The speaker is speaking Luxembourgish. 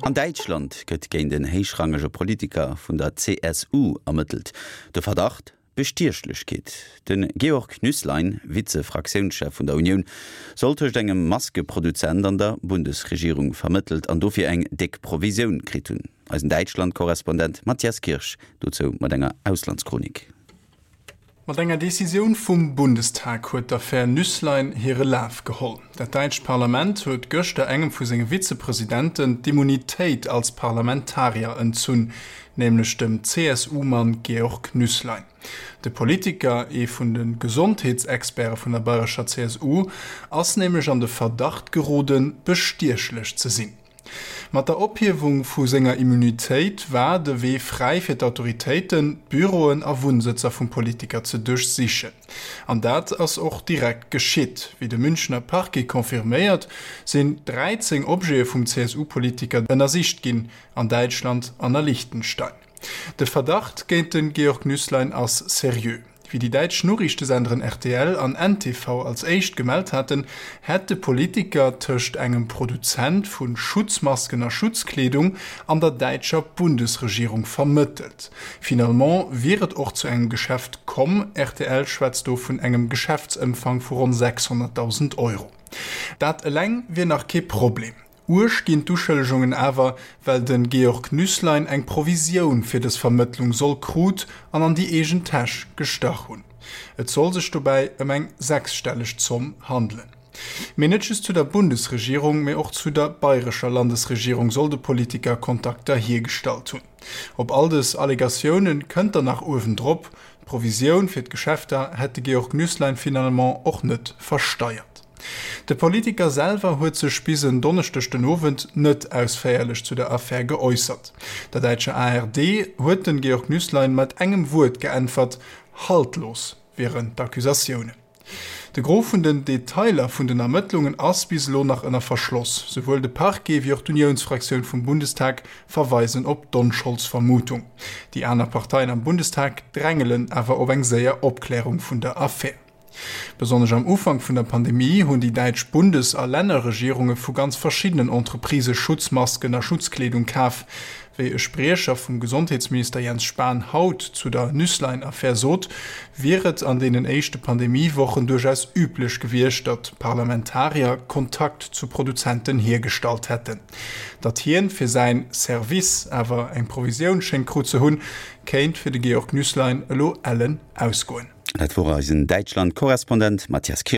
An Däitschland gëtt géint en héichrangege Politiker vun der CSU ermëttelt. De Verdacht, Bestiechlechkeet. De Georg Nüßlein, Vize-Fraktiounschef vun der Unioun, soll tëscht engem Maskeproduzent an der Bundesregierung vermëttelt an dofir eng déck Provisioun kritt hunn. Eisen Däitschland-Korrespondent Matthias Kirsch dozou mat enger Auslandschronik. Mat enger Decisioun vum Bundestag huet d'Affär Nüsslein hire Laf geholl. Dat däitscht Parlament huet gëschter engem vu senge Vizepresidenten d'Immunitéit als Parlamentarier entzunn, nämlech dem CSU-Mann Georg Nüsslein. De Politiker, ee vun de Gesondheetsexperte vun der bayrescher CSU, ass nämlech an de Verdacht geroden, bestiechlech ze sinn. Mat der Ophiewung vu senger Immunitéit war de Wee fräi fir d'Autoritéiten, d'Büroen a Wunnsëtzer vum Politiker ze duerchsichen. An dat ass och direkt geschitt. Wéi de Münchener Parquet confirméiert, sinn 13 Objete vum CSU-Politiker ënnersicht ginn, an Däitschland an a Liechtenstein. De Verdacht géint de Georg Nüßlein ass seriö. Wéi déi däitsch Noriichtesenderen rtl an ntv als éischt gemellt haten, hätt de Politiker tëscht engem Produzent vu Schutzmasken a Schutzkleedung an der däitscher Bundesregierung vermëttelt. Finalement wier et och zu engem Geschäft komm, rtl schwätzt do vun engem Geschäftsëmfang vu ronn 600.000 Euro. Dat eleng wier nach kee Problem. Uerg ginn d'Uschëllegungen awer, well de Georg Nüßlein eng Provisioun fir dës Vermëttlung soll krut an an déi eegen Täsch gestach hunn. Et soll sech dobäi ëm eng sechsstelleg Zomm handelen. Mee net just zu der Bundesregierung, mee och zu der bayrescher Landesregierung soll de Politiker Kontakter hiergestallt hunn. Op all dës Allegatioune kënnt dann nach uewendrop, D'Provisioun fir d'Geschäfter hätt de Georg Nüßlein finalement och net versteiert. De Politiker selwer huet sech bis en Donneschdeg den Owend net ausféierlech zu der Affär geäussert. Der däitscher ARD huet den Georg Nüßlein mat engem Wuert geäntwert, Haltlos wieren d'Accusatiounen. De Gros vun den Detailer vun den Ermëttlungen ass bis elo nach ënner Verschloss. Souwuel de Parquet wéi och d'Uniounsfraktioun vum Bundestag verweisen op d'Onscholdsvermutung. Déi aner Parteien am Bundestag drängelen awer op eng séier Opklärung vun der Affär. Besonnesch am Ufank vun der Pandemie hunn déi däitsch Bundes a Lännerregierunge vu ganz verschiddenen Entreprisë Schutzmasken a Schutzkleedung kaf. Wéi e Spriecher vum Gesondheetsminister Jens Spahn haut zu der Nüsslein-Affär sot, wier et an deenen éischte Pandemie-Wochen duerchaus üblech gewiescht, datt Parlamentarier Kontakt zu Produzenten hiergestallt hätten. Datt hien fir säin Service awer eng Provisioun schéngt krut ze hunn, kéint fir de Georg Nüsslein elo ellen ausgoen. Dat wor eisen Däitschland-Korrespondent Matthias Kirsch.